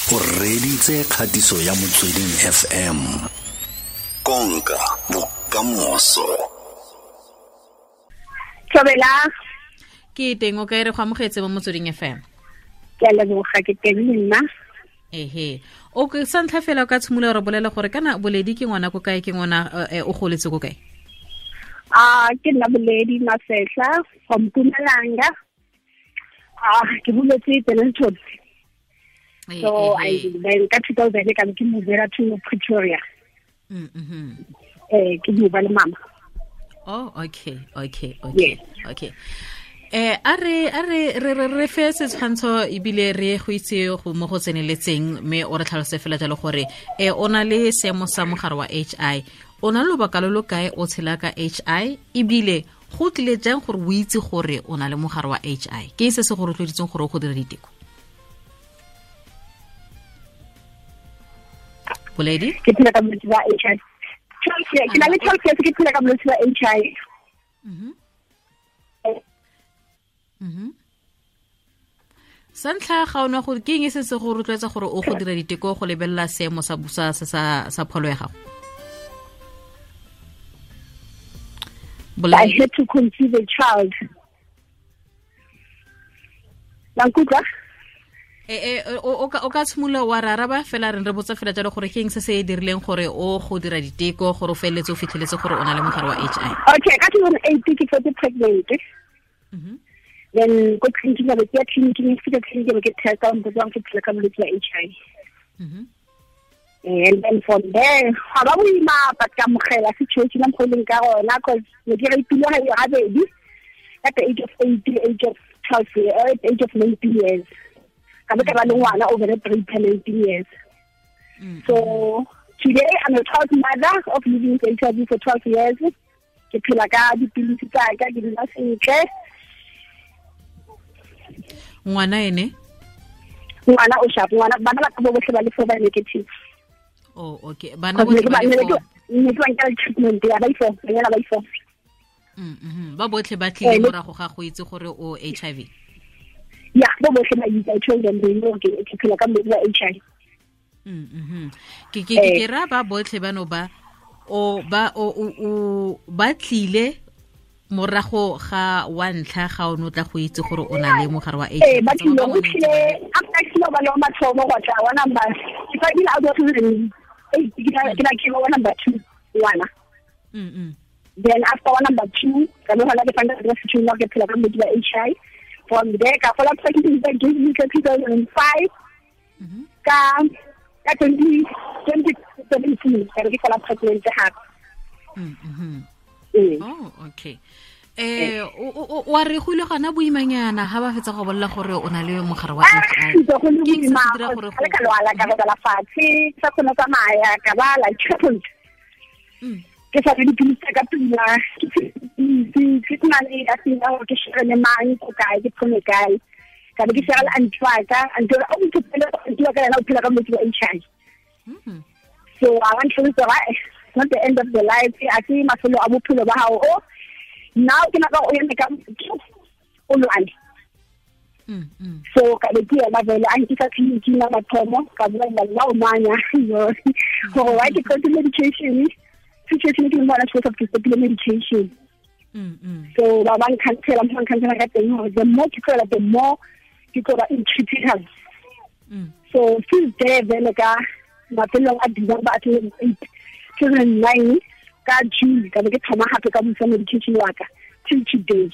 O reditse kgatiso ya Motsweding FM. Konka bokamoso. Thobela. Ke teng o kae re go amogetse mo Motsweding FM. Ke a leboga ke teng le nna. Ehe. O ke sa ntlha fela o ka tshimolola re bolela gore kana Boledi ke ngwana ko kae, ke ngwana o goletse ko kae? Ke nna Boledi Masehla from Mpumalanga. Ke boletse Dennilton. So I then ka 2000 ka ke movela to Pretoria. Ke move le mama. Oh, okay. Yes. Okay. A re fe setshwantsho ebile re go itse go mo go tseneletseng mme o re tlhalose fela jalo gore o na le seemo sa mogare wa HI, o na le lobaka lo lo kae o tshela ka HI, ebile go tlile jang gore o itse gore o na le mogare wa HI, ke se se go rotloeditseng gore o go dira diteko? Boledi? Ke phela ka bolwetse ba HI. Ke na le 12 years ke phela ka bolwetse ba HI. Sa ntlha ga ona gore ke eng se se go rotloetsa gore o go dira diteko go lebelela seemo sa busa sa pholo ya gago? I had to conceive a child. La nkutlwa? O ka tshimolola wa re araba fela re botsa fela jalo gore ke eng se se dirileng gore o go dira diteko gore o feleletse o fitlheletse gore o na le mogare wa HI. Okay, ka 2008 ke fetse pregnant. Then go clinic ba ke clinic ke clinic ba ke testa o mpotsa ke phela ka bolwetse ba HI. And then from there ga ba boima but ka amogela situation mo go leng ka gona cause ne ke re pilo ga e gabedi at the age of 8, age of 12, at the age of 19 years. Ka ba ka ba le ngwana over the 19 years. So today I'm a proud mother of living with HIV for 12 years. Ke phela ka dipilisi tsa ka, ke dula sentle. Ngwana ene? Ngwana o sharp, ngwana bana ba ka bo botlhe ba le 4 ba negative. Oh, okay. Bana botlhe ba le 4. Ne ke ba nkela treatment ya ba i4, banyana ba i4. Ba botlhe ba tlile morago ga go itse gore o HIV. Yeah, bo botlhe ba itse, I told them they know ke phela ka bolwetse ba HIV. Ke ra ba botlhe bano ba o ba o ba tlile morago ga wa ntlha ga o no tla go itse gore o na le mogare wa HIV. Ba tlile go tlile after ke ba le mathomo go tla wa number ke fa ile out of 8 ke na ke wa number 2 ngwana. Then after wa number 2 ka no hala ke fanda ke situation ke phela ka bolwetse ba HIV. From there ka fola pregnant ka 2005 ka 2017 ka ke fola pregnant gape. Oh, okay. Wa re go ile gona boimanyana ha ba fetsa go bolela gore o na le mogare wa HIV. Ke eng se se dira gore go ka lwala ka robala fatshe, sa kgone tsamaya ka ba la crippled. Ke sa dipilisi ka pila, ke na le a sena gore ke share le mang ko kae, ke phone kae. Ka be ke share le auntie wa ka, auntie o ntse auntie wa ka yena o phela ka bolwetse ba HIV. So I want to say it's not the end of the life. I see mafelo a bophelo ba hao o now ke nako o eme ka o lwane. So ka be ke ema vele a nkisa tleliniking ya mathomo ka bua le nna o manya gore why ke tlhoke medication. Situation ke mona supposed to stop medication. So ba ba nkhansela mo nkhansela ka teng gore the more ke tlola the more ke tlola in critical. So since there vele ka mafelong a December 2009 ka June ka be ke thoma gape ka busa medication wa ka till today.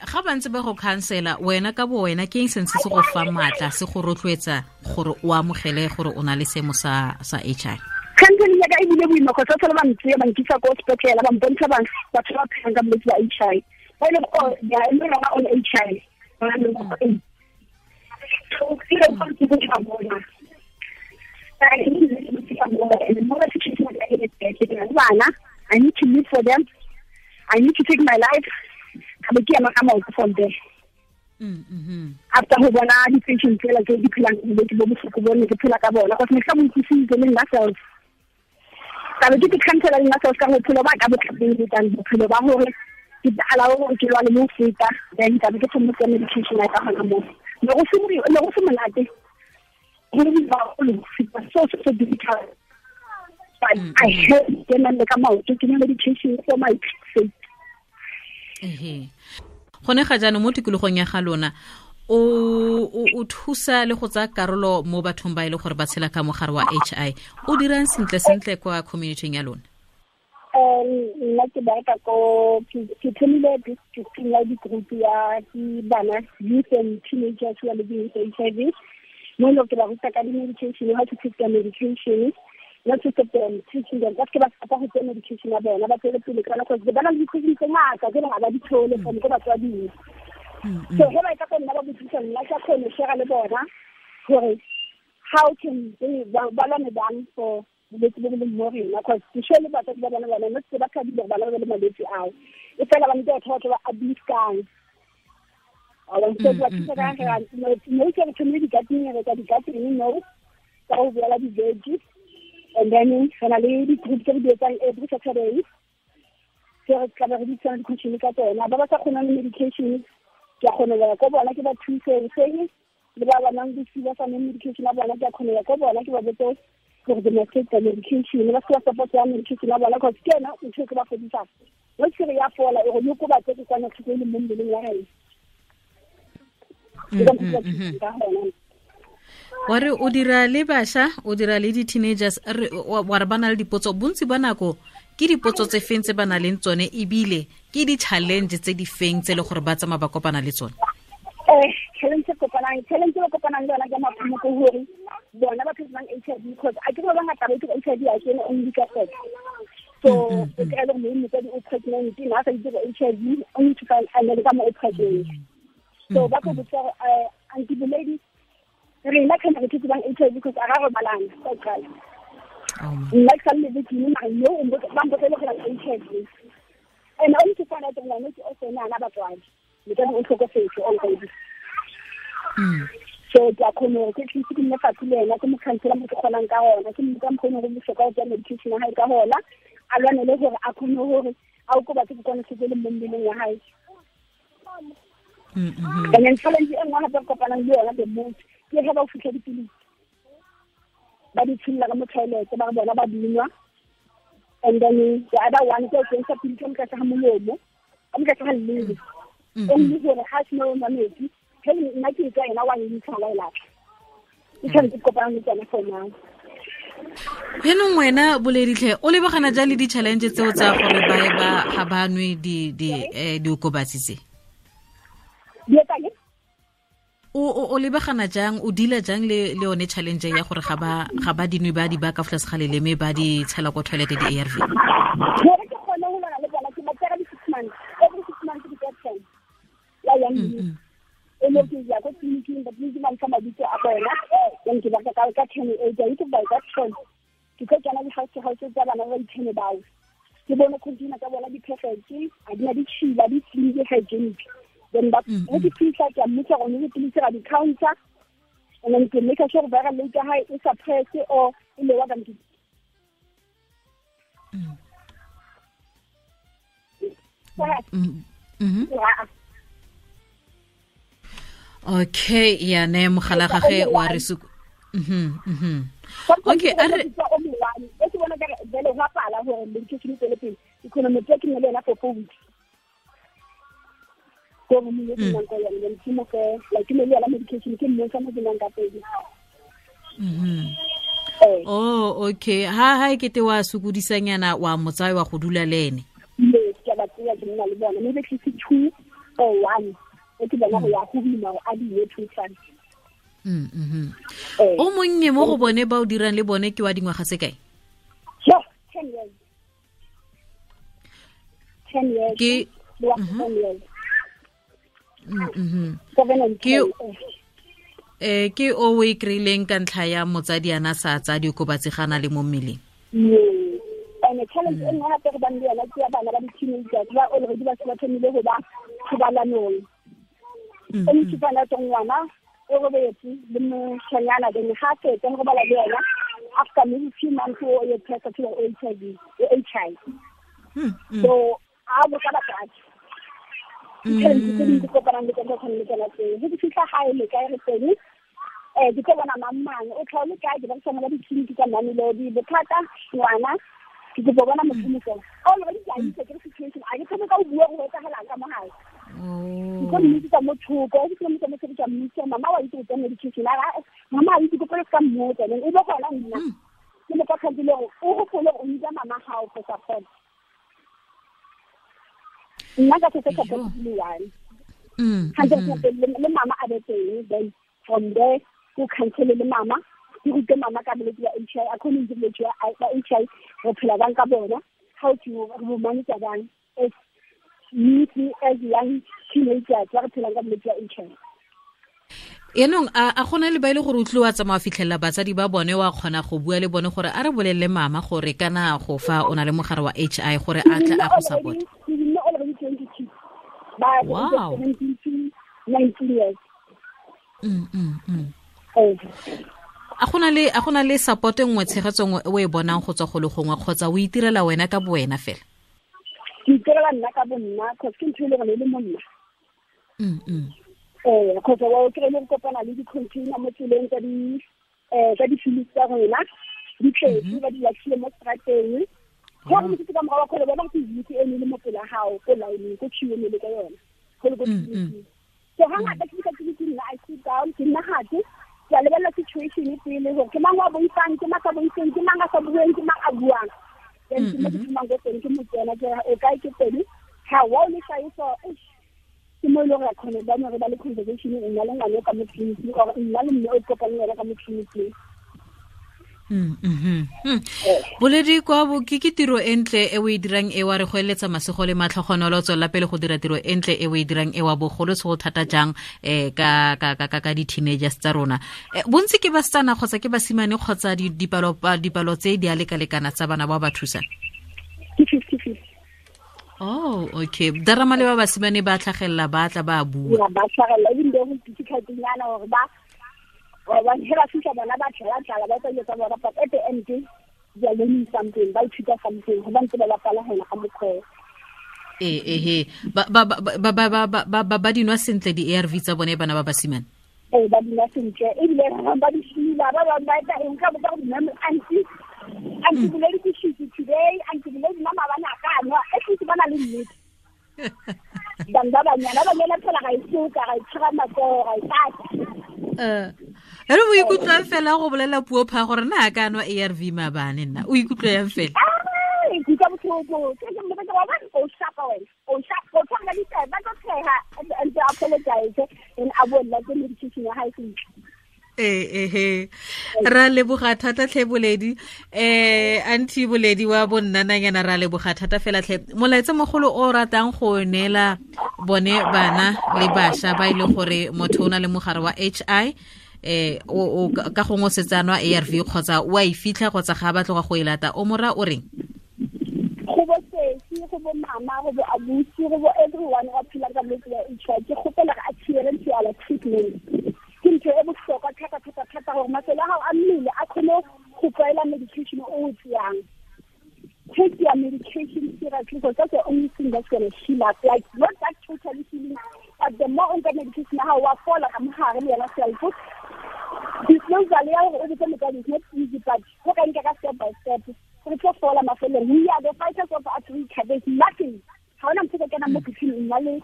Ga ba ntse ba go khansela wena ka bo wena ke eng se se go fa matla se go rotloetsa gore o amogele gore o na le seemo sa HI? Counseling ya ka e bile boima go tsa ba ntse ba nkisa ko sepetlele ba mpontsha ba batho ba phelang ka bolwetse ba HI. Ba ile go ya e le rona on HI. Ba le go so ke le go ke go bona. I need to live for them. I need to take my life. Ka be ke ema ka maoto from there. After go bona di-patient tsela tse di phelang bolwetse bo bohloko bo ne ke phela ka bona cause ne ke sa mo utlwisitse le nna self. Ka be ke khansela le nna self ka bophelo ba ka bo tlapele tang bophelo ba hore ke allow gore ke lwane mo feta then ka be ke thoma medication ya ka gona mo. Ne go se monate go le ba so so difficult. But I had ke nna le ka maoto ke medication for my sake. Gone ga jaanong mo tikologong ya ga lona o thusa le go tsaya karolo mo bathong ba e le gore ba tshela ka mogare wa HI, o dirang sentle sentle kwa community ya lona? Nna ke bereka ko ke thomile ke group ya bana, youth and teenagers who are living with HIV. Mo e ke ba ruta ka di-medication, how to take their medication, not to stop them teaching them. Ba se ba go tsaya medication ya bona, ba tswele pele ka nako ba na le di-question tse ngata tse ga ba di thole from ko batswading. So ge ba e ka go nna ba botsisa nna ke kgone share le bona gore how can they ba lwane bang for bolwetse bo bo leng mo rena, cause ke sure le batsadi ba bona bona not se ba thabile gore bana ba le malwetse ao, e fela ba ntse batho ba abuse-kang. So ba thusa ka gore mo ke re thomile di-gardening, re tsa di-gardening no ka go boela di-veggie, and then re na le di-group tse re di etsang every Saturday tse re tlabe re bitsang di-question ka tsona. Ba ba sa kgonang le medication ke a kgone go ya ko bona ke ba thuse seng, le ba ba nang bosiu ba sa nweng medication ya bona ke a kgone ya ko bona ke ba botse gore they must take the medication, ba se ba support ya medication ya bona, cause ke yona ntho e ke ba fodisang. Mo ke re ya fola e go yo ba tse ke kwana tlhoko e le mo mmeleng wa rena. Wa re o dira le bašwa, o dira le di-teenagers, wa re ba na le dipotso bontsi ba nako ke dipotso tse feng tse ba na leng tsone, ebile ke di-challenge tse di feng tse e le gore ba tsamaya ba kopana le tsone? Challenge e kopanang le yona ke maphumo ke gore bona ba phelang HIV, because a ke ba bangata ba itse HIV a kene only ka sex. So o kry-e le gore motsadi o pregnant, na sa itse HIV, only to find and then ka mo o pregnant. So ba ko botsa gore aunty Boledi, rena kana re thetse bang HIV because a ga robalana ka qala. Nna ke sa le victim mara yo o ba mpotsa le gore HIV. And only to find out that ngwana ke o sena ana batswadi. Motsadi o tlhokofetse already. So ke a kgone gore ke tlise ke nne fatshe le ena, ke mo khansela mo ke kgonang ka gona, ke mo ka mokgone gore bohlokwa go tsaya medication ya hae ka gona, a lwanele gore a kgone gore a okobatse kokwanahloko e leng mo mmeleng wa hae. And then challenge e nngwe gape re kopanang le yona the most ke ge ba o fitlha dipilisi ba di tsholola ka mo toilet, ba re bona ba dinwa, and then the other one ke o kentsha pilisi ka mo tlase ga molomo, ka mo tlase ga leleme, only gore ga a sena o nwa metsi, ge nna ke tswa ena wa ntsha wa e latlha. Ke challenge ke kopanang le tsone for now. Jaanong wena Boleditlhe, o lebagana jang le di-challenge tseo tsa gore ba ga ba nwe diokobatsi tse? O lebagana jang, o deala jang le yone challenge ya gore ga ba dinwe ba di ba ka tlase ga leleme ba di tshela ko toilet di-ARV? Gore ke kgone go lwana le bona ke ba tsaya di-6 months, every 6 months ke tsaya ten ya yang e le ke ya ko tleliniking, ba tleliniki ba ntsha mabitso a bona, then ke ba ka 10 e ke itse by that ten ke tlo kena di-house to house tsa bana ba di-ten bao, ke bone container tsa bona di-perfect, a di na ditšhila, di clean, di hygienic. Then ba go ke fitlha ke a mmotsa gore ne dipilisi ga di-counter, and then ke make sure gore viral load ya hae e suppress or e lower than Okay, ya ne mogala gage wa re suku. Okay, a re e ke bona ka vele go pala gore medication e tswele pele, ke kgone mo tsaya ke nne le yena for 4 weeks. Ko mo mo ke nang ka yona, ke mo fe like ke le yona medication ke mo sa mo ke nang ka pedi. Oh, okay. Ha e kete wa sokodisanyana wa motsae wa go dula le ene. Yes, ke ba tseya ke nna le bona, maybe ke 2 or 1. E ke bona go ya go bima a di ye 2 times. O monnye mo go bone ba o dirang le bone ke wa dingwaga tse kae? Sure, 10 years. 10 years. Ke 10 years. Ke ke o e kry-ileng ka ntlha ya motsadi ana sa tsa diokobatsi ga na le mo mmeleng. And challenge e nngwe gape re bang le yona ke ya bana ba di-teenagers ba already ba se ba thomile go ba thobalanong. O ntse bana tsa ngwana o robetse le moshanyana, then ga fetsa go robala le yena after maybe few months o ye test to HIV. So a botsa batsadi. Tse dingwe ke kopanang le tsone tshwane le tsona tseo. Ge ke fitlha gae le kae re teng, ke tlo bona mang mang o tlhaole kae, ke berekisana ba ditleliniki tsa Mamelodi. Bothata ngwana ke kopa bona motho mofela already ke a itse ke re situation, a ke thome ka o bua go etsagalang ka mo gae. Ke tlo mmitsetsa mo thoko, ke tlo mmitsa mo thoko, ke a mmitsa, mama wa itse go tsaya medication, a re mama a itse, ke pele ka mmotsa, then e be gona nna ke mo fa kgantile gore o gopole o mmitsa mama gago for support. Nna ka se support le one 100% le mama a be teng, then from there ko counsel le mama, ke rute mama ka bolwetse ba HIV, a khone itse bolwetse ba HIV re phela bang ka bona, how to re manage bang as youth, as young teenagers ba re phelang ka bolwetse ba HIV. Yaanong a gona le ba ile gore o tlile wa tsamaya fitlhelela batsadi ba bone, wa kgona go bua le bone gore a re bolelele mama gore kana go fa o na le mogare wa HI gore a tle a go support? Wow. A gona le support e nngwe, tshegetso nngwe o e bonang go tswa go le gongwe, kgotsa o itirela wena ka bo wena fela? Ke itirela nna ka bo nna, cause ke ntho e le gore e le mo nna. Kgotsa wa o kry-ile go kopana le di-container mo tseleng tsa di-films tsa rona, di tletse ba di latlhile mo strateng. Go re motho ka morago wa kgole bona go itse e le mo pela gago ko line ko queue le ka yona go le ko tleliniking. So hangata ke fihla tleliniking nna I sit down, ke nna gate ke a lebelela situation pele gore ke mang wa boifang, ke mang sa boifeng, ke mang a sa bueng, ke mang a buang. Then ke mo ke thomang ko teng, ke mo tsena ke o kae ke teng, ha wa o le tlhagiso, ke mo e leng gore re kgone ba re ba le conversation nna le ngwane ka mo tleliniking, or nna le mme o kopane le yena ka mo tleliniking. Boledi kwa bo ke tiro e ntle e o e dirang e wa re go eletsa masego le matlhogonolo, tswela pele go dira tiro e ntle e o e dirang e wa bogolo se go thata jang ka ka ka ka di-teenagers tsa rona. Bontsi ke basetsana kgotsa ke basimane kgotsa dipalo tse di a lekalekana tsa bana ba ba thusang? Ke 50-50. Oh, okay. Darama le ba basimane ba tlhagelela, ba tla ba bua. Ya, ba tlhagelela, ebile go difficult-nyana gore ba ba hela fitlha bona ba tlala ba tsa tsa bona, but at the end they are learning something, ba ithuta something, go ba ntse ba bapala gona ka mokgwa. Ba ba dinwa sentle di-ARV tsa bone bana ba basimane? Ba dinwa sentle, ebile ba di fila, ba bangwe ba etsa eng ka botsa gore ma'am, auntie Boledi ke shitse today, auntie Boledi nna maabane a ka nwa, at least ba na le nnete. Bang ba banyana, ba banyana phela ga e soka, ga e tshwara matsogo, ga e tata. Ere o ikutlwang fela go bolela puo pha gore na a ka nwa ARV maabane nna, o ikutlwa yang fela? Ke utlwa botlhoko, ke ke mmotsa ke re, wa bona, o shapa wena, o shapa, o tshwana le ditaba, ba tlo tsheha, and they apologize, and a bolela ke medication ya hae sentle. Ra leboga thata tlhe Boledi, auntie Boledi wa bonnananyana, ra leboga thata fela tlhe. Molaetsa mogolo o ratang go neela bone bana le bašwa ba e leng gore motho o na le mogare wa HI, o ka gongwe o setse a nwa ARV kgotsa o a e fitlha kgotsa ga a batloga go e lata, o mora o reng? Go bo sesi, go bo mama, go bo abusi, go bo everyone wa phelang ka bolwetse ba HIV, ke kgopela gore adherence to our treatment ke ntho e bohlokwa thata thata thata, gore masole a gago a mmele a kgone go tlwaela medication o o tseyang. Take your medication seriously, because that's the only thing that's going to heal up. Like, not that totally healing, but the more o nka medication ya gago, wa fola ka mogare le yona self. Disclosure ya gore o botse motswadi is not easy, but go ka nka ka step by step, re tlo fola mafelong. We are the fighters of Africa. There's nothing. Ga ona motho o ka kenang mo botshelo nna le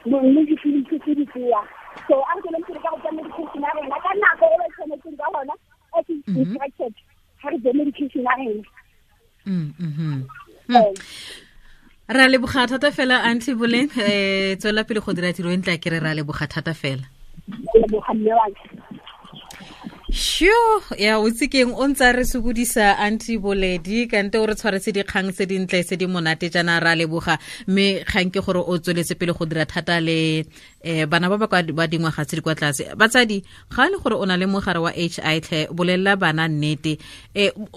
mme dipilisi tse di tseya. So a re tsweleng pele ka go tsaya medication ya rona ka nako e ba tshwanetseng ka gona, as is instructed, ga re tseye medication ya rena. Ra leboga thata fela auntie Boleng, tswela pele go dira tiro e ntle, ke re ra leboga thata fela. Leboga mme wa ka. Sure, ya o tse keng o ntse re sokodisa auntie Boledi, kante o re tshwaretse dikgang tse dintle tse di monate jaana, ra leboga. Mme kgang ke gore o tsweletse pele go dira thata le bana ba ba kwa ba dingwaga tse di kwa tlase. Batsadi, ga e le gore o na le mogare wa HI tlhe, bolelela bana nnete.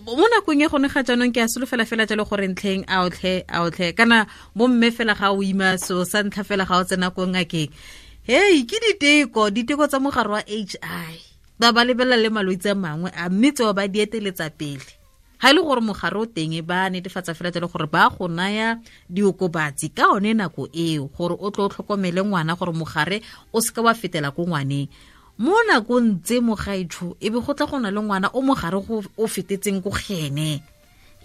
Mo nakong e gone ga jaanong ke a solofela fela jalo gore ntlheng a otlhe, a otlhe, kana bomme fela ga o ima so sa ntlha fela ga o tsena ko ngakeng. Hei, ke diteko tsa mogare wa HI. Ba ba lebelela le malwetse a mangwe a, mme tseo ba di eteletsa pele. Ga e le gore mogare o teng, ba netefatsa fela jalo gore ba go naya diokobatsi ka one nako eo, gore o tlo o tlhokomele ngwana, gore mogare o seka wa fetela ko ngwaneng. Mo nakong tse, mogaetsho, e be go tla go na le ngwana o mogare o fetetseng ko gene.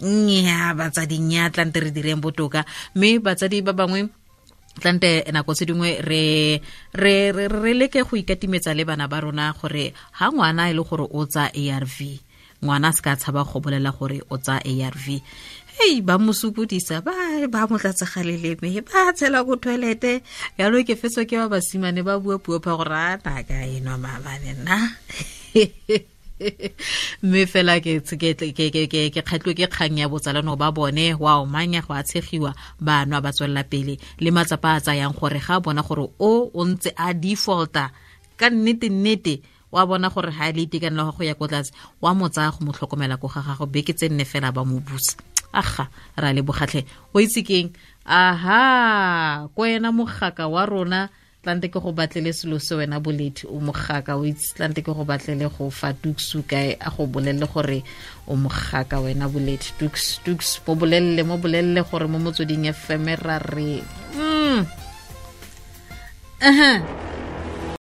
Nnyaa, batsadi, nnyaa, tlante re direng botoka. Mme batsadi ba bangwe, tlante nako tse dingwe re leke go ikatimetsa le bana ba rona, gore ha ngwana e le gore o tsa ARV, ngwana a se ka tshaba go bolela gore o tsa ARV. Hei, ba mo sokodisa, ba mo tlatsa ga leleme, ba tshela ko toilete. Yalo ke fetso ke ba basimane ba bua puo pha gore a naka enwa maabane nna. Mme fela ke kgatlhiwe ke kgang ya botsalano ba bone wa omanya, go a tshegiwa, ba nwa, ba tswelela pele le matsapa a tsayang, gore ga bona gore o ntse a defaulta ka nnete nnete, wa bona gore ga e le itekanelo go ya ko tlase, wa mo tsaya go mo tlhokomela ko ga gago beke tse 4 fela, ba mo busa. Aga, ra le bogatlhe, o itse keng? Aha, ko wena mogaka wa rona, tlante ke go batlele selo se. Wena Boledi, o mogaka, o itse. Tlante ke go batlele go fa tuksu kae, a go bolelele gore o mogaka wena Boledi. Tuks, tuks, mo bolelele, mo bolelele gore mo Motsweding FM ra re.